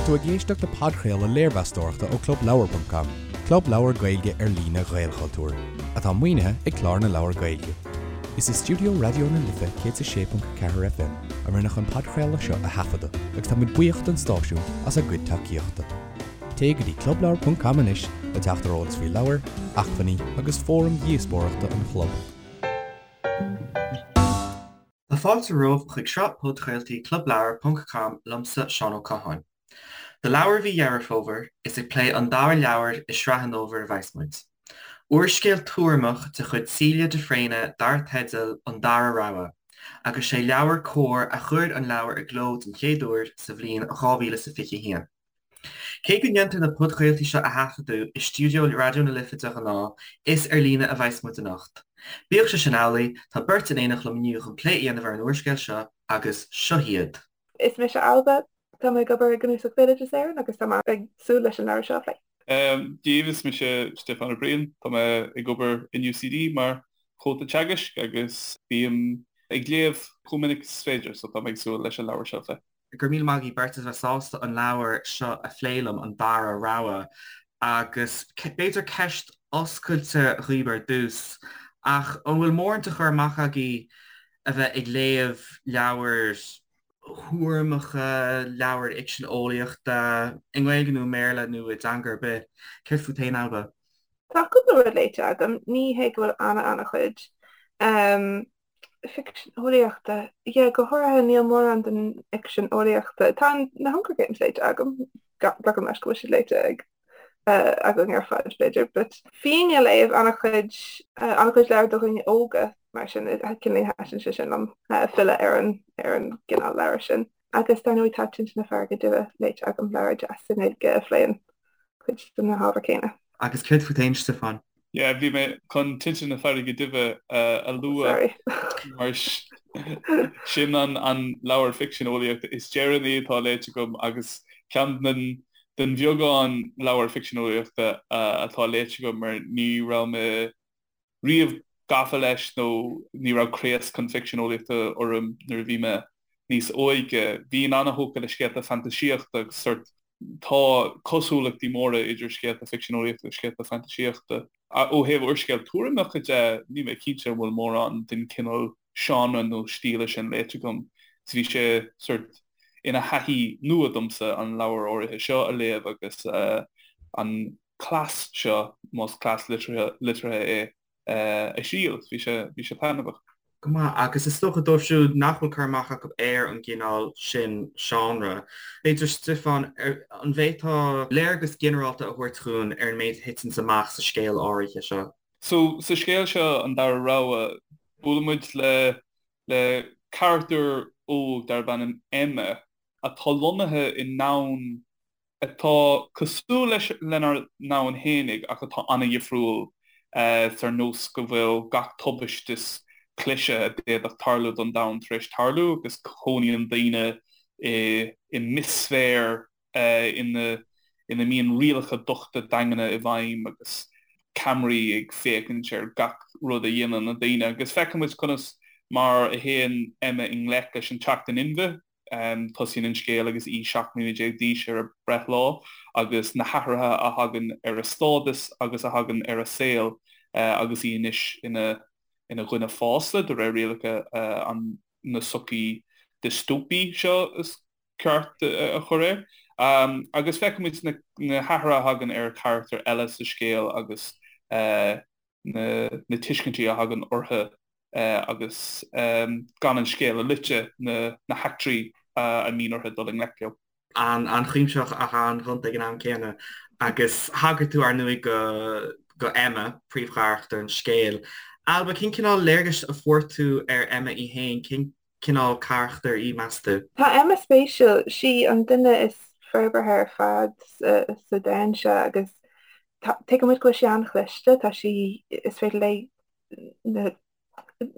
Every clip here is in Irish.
tú ag éisteacht le podchraoladh léirmheastóireachta ó ClubLeabhar.com, club leabhar Gaeilge ar líne Ghaelchultúir, atá maoinithe ag Clár na Leabhar Gaeilge. Is i stiúideo Raidió na Life 106.4 FM a rinneadh an podchraoladh seo a thaifeadadh agus tá muid buíoch don stáisiún as a gcuid tacaíochta. Téigh go dtí clubleabhar.com anois le teacht ar eolas faoi leabhair, acmhainní agus fóraim dhíospóireachta an chlub. Tá fáilte romhaibh chuig sraith podchraoltaí Clubleabhar ponc com liomsa Seán Ó Catháin. Do leabhar mhí Dheireadh Fómhair, is ag plé an dara leabhar i sraith an fhómhair a bheas muid. Úrscéal tuairimeach de chuid Celia de Fréine dar teideal An Dara Rogha, agus sé Leabhar Comhar a chuir an leabhar i gcló den chéad uair sa bhliain 2021. Cé go ndéantar na podchraoltaí seo a thaifeadadh i stiúideo Raidió na Life de ghnáth, is ar líne a bheas muid anocht. Bíodh sé sin amhlaidh, tá beirt in éineacht liom inniu chun plé a dhéanamh ar an úrscéal seo agus seo hiad. Is mise Ailbhe. Tá mé ag obair i gCnuasach Bhéaloideas Éireann agus tá mé ag súil leis an leabhar seo a phlé. Dia daoibh, is mise Stiofán Ó Briain. Tá mé ag obair in UCD mar chomhalta teagaisc agus bím ag léamh chomh minic is féidir, so tá mé ag súil leis an leabhar seo a phlé. Go raibh míle maith agaibh beirt as bheith sásta an leabhar seo a phlé liom, An Dara Rogha. Agus b'fhéidir ceist oscailte dhaoibh ar dtús, ach an bhfuil mórán de chur amach agaibh a bheith ag léamh leabhair thuairimeacha, leabhair fhicsean eolaíochta, i nGaeilge nó i mBéarla nó i dteanga ar bith? Céard fút féin, Ailbhe? Tá cúpla rud léite agam, ní hé go bhfuil ana-ana-chuid. Ficsean eolaíochta? Yeah, go háirithe níl mórán den fhicsean eolaíochta. Tá na Hunger Games léite agam, glacaim leis go bhfuil siad léite ag againn ar fad b'fhéidir, but bhínn ag léamh an-chuid an-chuid leabhar do dhaoine óga mar sin cineál thaitin sé sin liom filleadh ar an ar an gcineál leabhar sin. Agus dar ndóigh tá Tinte na Farraige Duibhe léite agam, leabhar deas i nGaeilge a phléann cuid de na hábhair céanna. Agus céard fút féin, Stiofán? Yeah, bhí mé chun Tinte na Farraige Duibhe a lua mar sin an leabhar ficsean eolaíochta is deireanaí atá léite agam agus ceann den den bheagán leabhar ficsean eolaíochta atá léite agam mar ní raibh mé riamh gafa leis nó ní raibh craos chun ficsean eolaíochta orm nuair a bhí mé níos óige. Bhínn an-thógtha le scéalta fantaisíochta agus sort Tá cosúlachtaí móra idir scéalta ficsean eolaíochta agus scéalta fantaisíochta. Ó thaobh úrscéal tuairimeacha de, níl mé cinnte an bhfuil mórán den chineál seánra nó stíle sin léite agam. So bhí sé sort ina thaithí nua domsa an leabhar áirithe seo a léamh agus an cleas seo, más cleas liteartha é, a thriail. Bhí sé, bhí sé taitneamhach. Go maith, agus is dócha dóibh siúd nach bhfuil cur amach acu ar an gcineál sin seánra, b'fhéidir, Stiofán, an bhféadfá léargas ginearálta a thabhairt dhúinn ar an méid a thiteanns amach sa scéal áirithe seo? So, sa scéal seo, An Dara Rogha, buaileann muid le, le carachtar óg darb ainm Emma atá lonnaithe i ndomhan atá cosúil leis lenár ndomhan fhéinig ach atá an-dhifriúil ar nós go bhfuil gach tubaiste is cliseadh a d'fhéadfadh tarlú don domhan tar éis tarlú agus cónaíonn daoine i i mbithsféar ina ina mbíonn rialacha dochta daingne i bhfeidhm agus ceamaraí ag féachaint ar gach rud a dhéanann na daoine agus feiceann muid conas mar a théann Emma i ngleic leis an teacht in inmhe Tosaíonn an scéal agus í 17 mbliana d'aois ar a breithlá agus na hathruithe a thagann ar a stádas agus a thagann ar a saol agus í anois ina ina dhuine fásta de réir rialacha an na sochaí diostóipí seo is ceart a chur air. Agus feicimid na na hathruithe a thagann ar charachtair eile sa scéal agus na na tuiscintí a thagann orthu agus gan an scéal a loiteadh, na heachtraí a mbíonn orthu dul i ngleic leo. An-chuimsitheach ach an-ghonta ag an am céanna. Agus thagair tú, ar ndóigh, go go Emma, príomhcharachtar an scéil. Ailbhe, cén cineál léargais a fuair tú ar Emma í féin? Cén cineál carachtair í, meas tú? Tá Emma spéisiúil. Sí an duine is forbartha ar fad sa domhan seo agus tuigeann muid go bhfuil sí an-chliste. Tá sí, is féidir léi na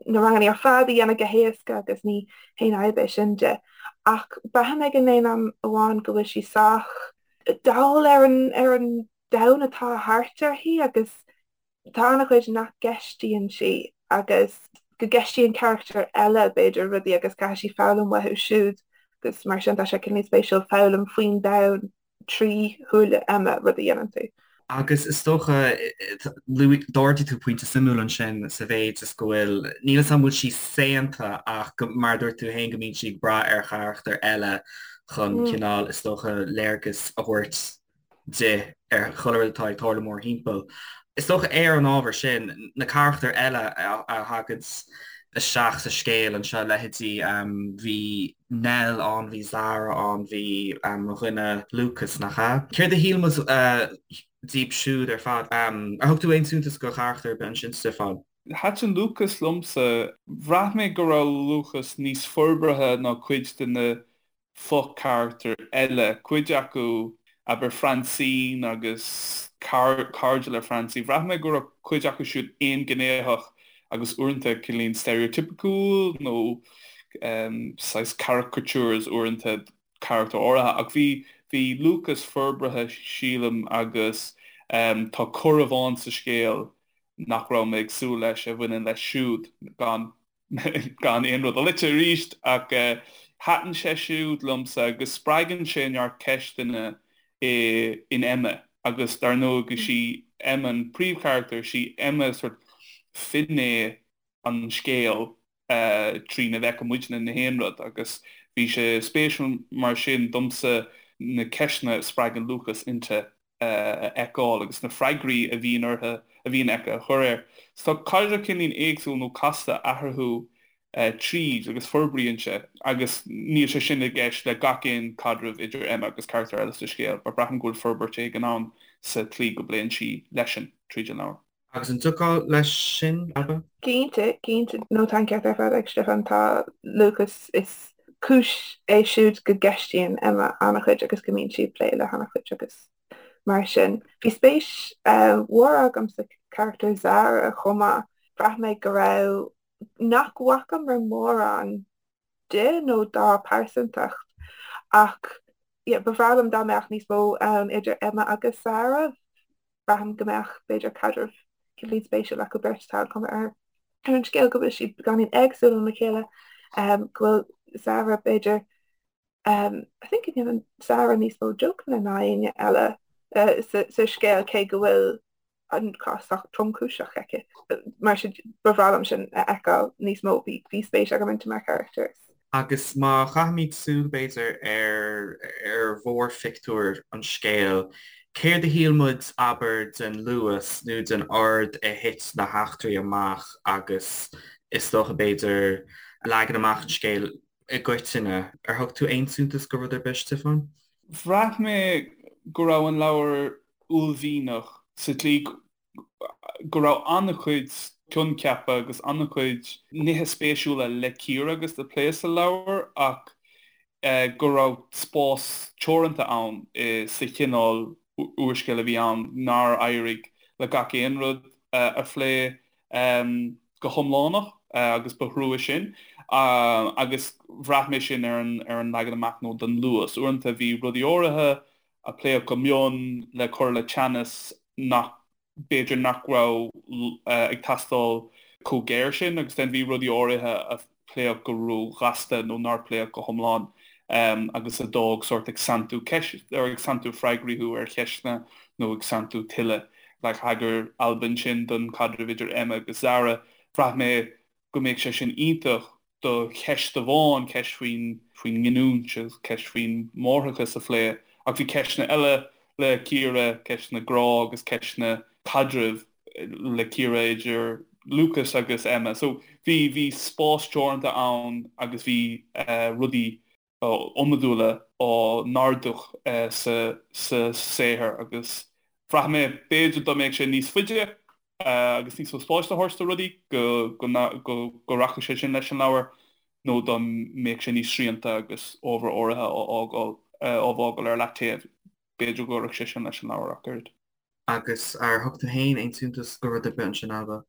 na ranganna ar fad a dhéanamh go héasca agus ní haon fhadhb é sin di. Ach braithim ag an aon am amháin go bhfuil sí sách dall ar an ar an domhan atá thart uirthi agus tá an-chuid nach gceistíonn sí agus go gceistíonn carachtair eile b'fhéidir rudaí agus caithfidh sí foghlaim uathu siúd agus mar sin tá sé cineál spéisiúil foghlaim faoin domhan. trí shúile Emma rud a dhéanann tú. Agus is dócha, d'ardaigh tú pointe suimiúil ansin sa mhéid is go bhfuil, níl 'fhios a'm an bhfuil sí saonta ach go, mar a dúirt tú féin, go mbíonn sí ag brath ar charachtar eile chun cineál, is dócha, léargas a thabhairt di ar chuile rud atá ag tarlú mórthimpeall. Is dócha ar an ábhar sin, na carachtair eile a thagann isteach sa scéal anseo, leithéidí, bhí Nell ann, bhí Zara ann, bhí mo dhuine Lucas, nach ea? Céard a shíl muid díobh siúd ar fad? Ar thug tú aon suntas do charachtar ar bith ansin, Stiofán? Thaitin Lucas liomsa. Bhraith mé go raibh Lucas níos forbartha ná cuid de na fo-charachtair eile, cuid acu, abair Francine agus cairde le Francine, bhraith mé go raibh cuid acu siúd aonghnéitheach agus uaireanta cineáilín stereotypiciúil nó saghas caricatures uaireanta carachtar áirithe ach bhí bhí Lucas forbartha sílim agus tá cor amháin sa scéal nach raibh mé ag súil leis a bhaineann leis siúd gan gan aon rud a loiteadh arís, ach thaitin sé siúd liomsa agus spreagann sé neart ceisteanna in Emma agus dar ndóigh is í Emma an príomhcharachtar, is í Emma sort finné an scéil trína bhfeiceann muidne na haon rud agus bhí sé spéisiúil mar sin domsa na ceisteanna a spreagann Lucas inti. a fheiceáil agus na freagraí a bhíonn orthu, a bhíonn aici a chur air. So tá caidreamh cineáilín éagsúil nó casta eatarthu tríd agus forbraíonn sé agus níl sé sin i gceist le gach aon caidreamh idir Emma agus carachtar eile sa scéal but braithim go bhfuil forbairt éigin ann sa tslí go bpléann sí leisean tríd an leabhar. Agus an dtiocfá leis sin, Ailbhe? Cinnte, cinnte. No, tá an ceart ar fad ag Stiofán. Tá Lucas, is cúis é siúd go gceistíonn Emma an-chuid agus go mbíonn sí ag plé le han-chuid agus mar sin. Bhí spéis mhór agam sa charachtar Zara chomh maith. Bhraith mé go raibh, nach bhfacamar mórán di nó dá pearsantacht ach yeah, ba bhreá liom dá mbeadh níos mó ann idir Emma agus Zara. Braithim go mbeadh, b'fhéidir, caidreamh cineáilín spéisiúil acu beirt. Tá an chuma ar an scéal go bhfuil siad beagáinín éagsúil óna chéile, go bhfuil Zara, b'fhéidir, I think go ndéanann Zara níos mó jokeanna ná éinne eile sa scéal, cé go bhfuil an cás sách tromchúiseach aici. Mar sin, ba bhreá liom sin a fheiceáil níos mó. Bhí spéis agam inti mar charachtar. Agus má chaithimid súil, b'fhéidir, ar ar mhórphictiúr an scéil, céard a shíl muid, abair, den luas nó den ord a thit na heachtraí amach agus is dócha, b'fhéidir, leagan amach an scéil i gcoitinne? Ar thug tú aon suntas go rud ar bith, Stiofán? Bhraith mé go raibh an leabhar uaillmhianach sa tslí go raibh an-chuid coincheapa agus an-chuid nithe spéisiúla le cíoradh agus le plé sa leabhar ach go raibh spás teoranta ann sa chineál úrscéil a bhí ann nár éirigh le gach aon rud a phlé go hiomlánach agus ba thrua sin agus bhraith mé sin ar an leagan amach nó don luas. Uaireanta bhí rudaí áirithe a pléadh go mion le cur le teannas nach, b'fhéidir nach raibh ag teastáil chomh géar sin agus then bhí rudaí áirithe a pléadh go ró-ghasta nó nár pléadh go hiomlán agus a d'fhág sórt ag santú ceist, or ag santú freagraí thú ar cheisteanna nó ag santú tuilleadh. Like thagair Ailbhe ansin don chaidreamh idir Emma agus Zara, bhraith mé go mbeadh sé sin iontach do cheist amháin, ceist faoin faoin nginiúint agus ceist faoin máithreachas a phlé, ach bhí ceisteanna eile le cíoradh, ceisteanna grá agus ceisteanna caidrimh le cíoradh idir Lucas agus Emma. So bhí bhí spás teoranta ann agus bhí rudaí iomadúla á n-ardú sa saothar agus bhraith mé b'fhéidir dá mbeadh sé níos faide agus níos mó spáis a thabhairt do rudaí go rachadh sé sin leis an leabhar nó dá mbeadh sé níos srianta agus ábhar áirithe á fhágáil á bhfágáil ar leataobh b'fhéidir go gcuirfeadh sé sin leis an leabhar ach oiread. Agus ar thug tú féin aon suntas go rud ar bith ansin, Ailbhe?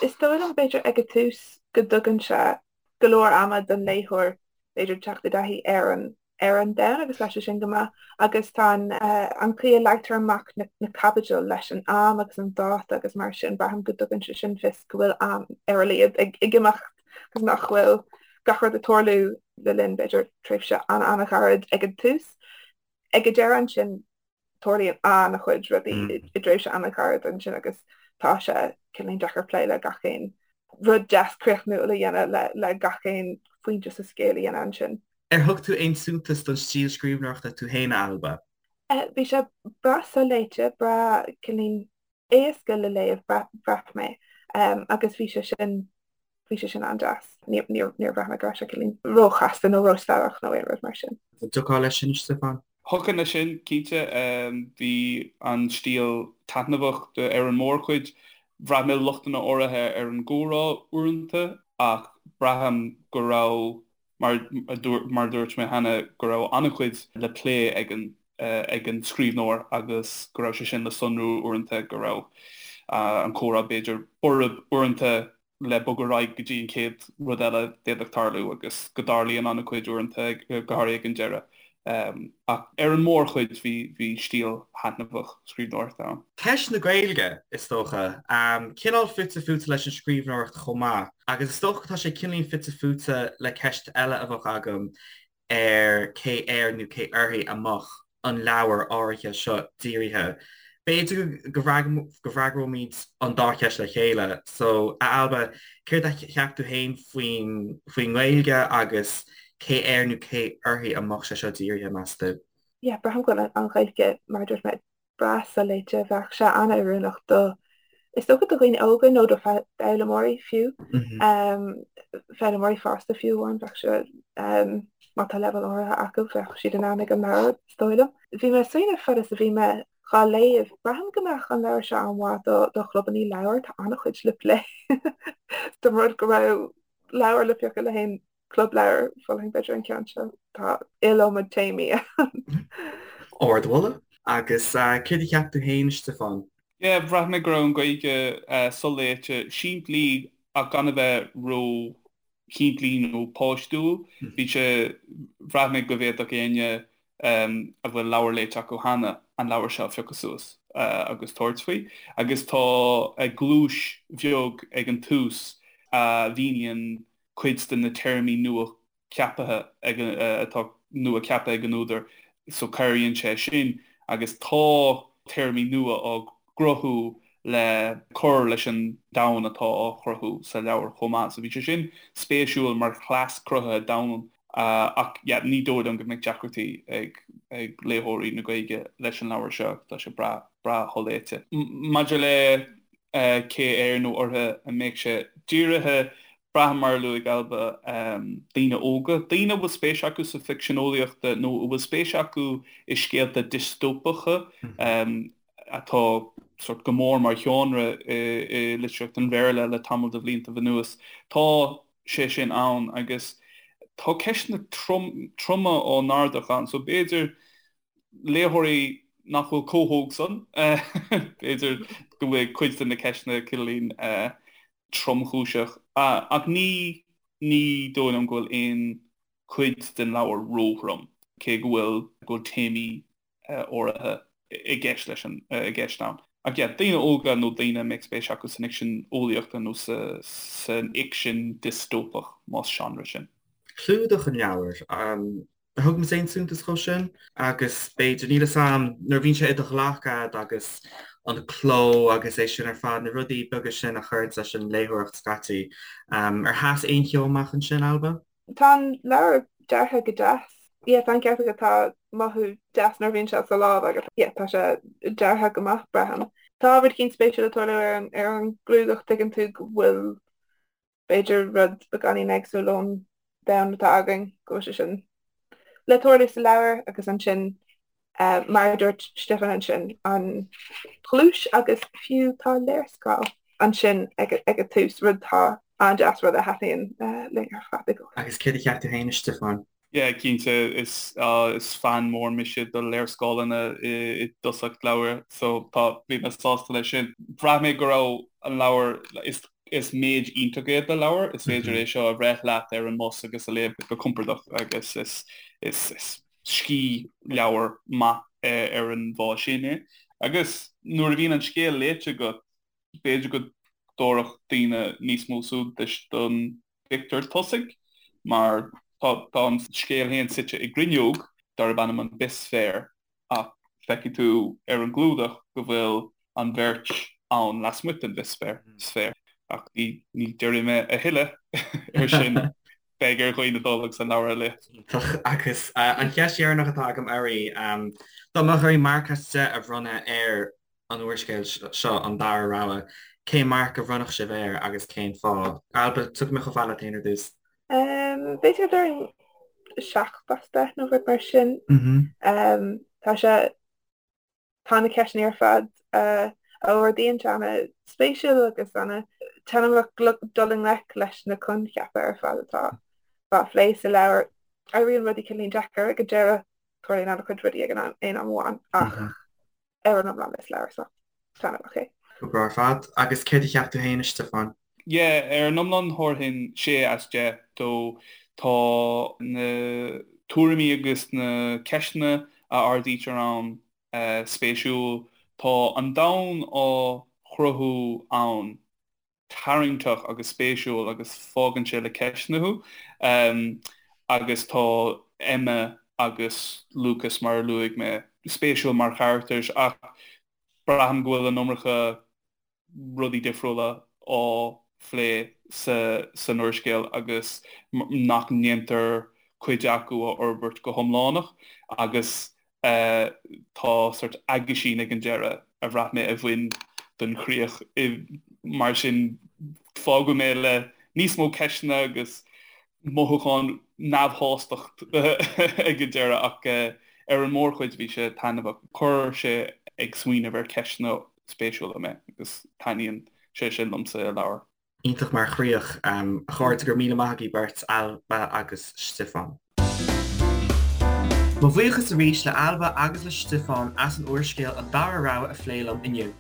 Is dóigh liom, b'fhéidir, ag an tús go dtugann sé go leor ama don léitheoir, b'fhéidir, teacht i dtaithí ar an ar an domhan agus leis sin go maith agus tá an an chaoi a leagtar amach na na caibidil leis an am agus an dáta agus mar sin, braithim go dtugann sé sin fios go bhfuil am ar a laghad ag ag imeacht agus nach bhfuil gach rud ag tarlú le linn, b'fhéidir, tréimhse an-an-ghairid ag an tús. Ag an deireadh ansin. Tarlaíonn an-chuid rudaí i dtréimhse an-ghairid ansin agus tá sé cineáilín deacair plé le gach aon rud deas críochnúil a dhéanamh le gach aon phointe sa scéal a dhéanamh ansin. Ar thug tú aon suntas don stíl scríbhneoireachta tú féin, a Ailbhe? Bhí sé breá soléite, breá cineáilín éasca le léamh, bhraith mé, agus bhí sé sin Bhí sé sin an-deas. Níor bhraith mé go raibh sé cineáilín róchasta nó róstadach nó aon rud mar sin. An dtiocfá leis sin, a Stiofáin? Thiocfainn leis sin, cinnte. Bhí an stíl taitneamhach ar an mórchuid. Bhraith mé lochtanna áirithe ar an gcomhrá uaireanta ach braithim go raibh, mar a dúirt mé cheana, go raibh an-chuid le plé ag an ag an scríbhneoir agus go raibh sé sin le sonrú uaireanta, go raibh an comhrá b'fhéidir borb uaireanta le bogadh ar aghaidh go dtí an chéad rud eile a d'fhéadfadh tarlú agus go dtarlaíonn an-chuid uaireanta, go háirithe ag an deireadh. Ach ar an mórchuid bhí bhí stíl thaitneamhach scríbhneoireachta ann. Ceist na Gaeilge, is dócha. Cineál fite fuaite leis an scríbhneoireacht chomh maith. Agus is dócha tá sé cineáilín fite fuaite le ceist eile a bheadh agam ar cé air nó cé uirthi a mbeadh an leabhar áirithe seo dírithe. B'fhéidir go bhfreagróimid an dá cheist le chéile. So, a Ailbhe, céard a cheap tú féin faoin faoin nGaeilge agus cé air nó cé uirthi a mbeadh sé seo dírithe, meas tú? Yeah, braithim go bhfuil an Ghaeilge, mar a dúirt mé, breá soléite. Bheadh sé an-oiriúnach do, is dócha do dhaoine óga nó do foghlaimeoirí fiú, foghlaimeoirí fásta fiú amháin, bheadh sé, má tá leibhéal áirithe acu, bheadh siad in ann ag an leabhar, is dóigh liom. Bhí mé ag smaoineamh fad is a bhí mé dhá léamh, braithim go mbeadh an leabhar seo an-mhaith do do chlubanna leabhar, tá an-chuid le plé. Dá mba rud go raibh leabhar le piocadh le haon Club leabhar, mholfainn b'fhéidir an ceann seo. Tá iliomad téamaí ann. Ardmholadh. Agus céard a cheap tú féin, a Stiofáin? Yeah, bhraith mé go raibh an Ghaeilge soléite, simplí ach gan a bheith ró-shimplí nó páistiúil. Bhí sé, bhraith mé go bhféadfadh éinne a bhfuil leabhar léite acu cheana an leabhar seo a phiocadh suas agus tabhairt faoi. Agus tá gluais bheag ag an tús a mhíníonn cuid de na téarmaí nua ceaptha ag atá nua ceaptha ag an údar so cabhraíonn sé sin agus tá téarmaí nua á gcruthú le cur leis an domhan atá á chruthú sa leabhar chomh maith. So bhí sé sin spéisiúil mar chleas cruthaithe domhan ach yeah ní dóigh liom go mbeidh deacrachtaí ag ag léitheoirí na Gaeilge leis an leabhar seo, tá sé breá breá sholéite. Maidir le cé air nó uirthi a mbeadh sé dírithe, Braithim, mar a luaigh Ailbhe, daoine óga, daoine a bhfuil spéis acu sa bhficsean eolaíochta nó a bhfuil spéis acu i scéalta diostóipeacha atá sórt go mór mar sheánra i litríocht an Bhéarla le tamall de bhliantaibh anuas. Tá sé sin ann agus tá ceisteanna troma á n-ardach ann so b'fhéidir léitheoirí nach bhfuil chomh hóg san, b'fhéidir go bhfuil cuid de na ceisteanna cineáilín tromchúiseach. Ach ní ní dóigh liom go bhfuil aon chuid den leabhar róthrom, cé go bhfuil go bhfuil téamaí áirithe i gceist leis an i gceist ann. Ach yeah, daoine óga nó daoine a mbeadh spéis acu san fhicsean eolaíochta nó sa san fhicsean diostóipeach, más seánra sin. Clúdach an leabhair. Ar thug muid aon suntas dhó sin? Agus b'fhéidir, níl 'fhios a'm, nuair a bhíonn sé i do ghlac a'd agus an cló agus é sin ar fad, na rudaí beaga sin a chuireanns leis an léitheoireacht scaití. Ar sheas aon cheo amach ansin, Ailbhe? Tá an leabhar deartha go deas. Yeah, tá an ceart agat, tá mothú deas nuair a bhíonn sé sa lámh agat. Yeah, tá sé deartha go maith, braithim. Tá rud éicint spéisiúil ag tarlú ar an ar an gclúdach, tuigeann tú go bhfuil b'fhéidir rud beagáinín éagsúil ón domhan atá againn, go bhfuil sé sin le tarlú sa leabhar agus ansin mar a dúirt Stiofán ansin, an ghluais agus fiú tá léarscáil ansin ag an tús, rud atá an-deas, rud a thaitníonn linn ar fad i gcónaí. Agus céard a cheap tú féin, a Stiofáin? Yeah, cinnte, is is fan mór mise do léarscáileanna i dtosach leabhair, so tá, bhí mé sásta leis sin. Bhraith mé go raibh an leabhar, is is méid iontach é do leabhar, is féidir é seo a bhreith leat ar an mbus agus a léamh go compordach agus is is is scíthleabhar maith ar an bhfáth sin é. Agus nuair a bhíonn an scéal léite agat, b'fhéidir go dtabharfadh daoine níos mó suntais don bpictiúr tosaigh, mar tá an scéal féin suite i gcruinneog darb ainm an Bithsféar, ach Feicfidh tú ar an gclúdach go bhfuil an bheirt ann lasmuigh den bhithsféar. Ach ní déarfaidh mé a thuilleadh ar sin, beidh ar dhaoine dul agus an leabhar a léamh. Iontach. Agus an cheist dheireanach atá agam oraibh, dá mbeadh oraibh marc as 10 a bhronnadh ar an úrscéal seo, An Dara Rogha, cén marc a bhronnfadh sibh air agus cén fáth? Ailbhe, tiocfaidh mé chomh fada leat féin ar dtús. B'fhéidir go déarfainn 7 as 10 nó rud mar sin. Tá sé, tá na ceisteanna ar fad a ardaíonn sé ana-spéisiúil agus ana-taitneamhach dul i ngleic leis na coincheapa ar fad atá á phlé sa leabhar. Éiríonn rudaí cineáilín deacair ag an deireadh, tarlaíonn an-chuid rudaí ag an aon am amháin ach ar an iomlán is leabhar sách taitneamhach é. Go breá ar fad. Agus céard a cheap tú féin, a Stiofáin? Yeah, ar an iomlán thabharfainn 6 as 10 dó. Tá na tuairimí agus na ceisteanna a ardaítear ann spéisiúil. Tá an domhan á chruthú ann tarraingteach agus spéisiúil agus fágann sé le ceisteanna thú. Agus tá Emma agus Lucas, mar a luaigh mé, spéisiúil mar charachtair ach braithim go bhfuil an iomarca rudaí difriúla á phlé san úrscéal agus nach ndéantar cuid acu a fhorbairt go hiomlánach agus tá sort aguisín ag an deireadh a bhraith mé a bhain don chríoch. Mar sin fágadh mé le níos mó ceisteanna agus mothúchán neamhshástacht ag an deireadh ach ar an mórchuid bhí sé taitneamhach. Chuir sé ag smaoineamh ar cheisteanna spéisiúla mé agus taitníonn sé sin liomsa i leabhar. Iontach mar chríoch. A chairde, go raibh míle maith agaibh beirt, Ailbhe agus Stiofán. Mo bhuíochas arís le Ailbhe agus le Stiofán as an úrscéal An Dara Rogha a phlé liom inniu.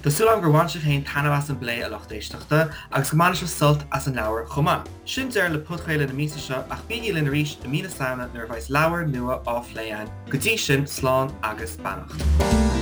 Tá súil agam gur bhain sibh féin taitneamh as an bplé, a lucht éisteachta, agus go mbainfidh sibh sult as an leabhar chomh maith. Sin deireadh le podchraoladh na míosa seo ach bígí linn arís i mí na Samhna nuair a bheas leabhar nua á phlé againn. Go dtí sin, slán agus beannacht.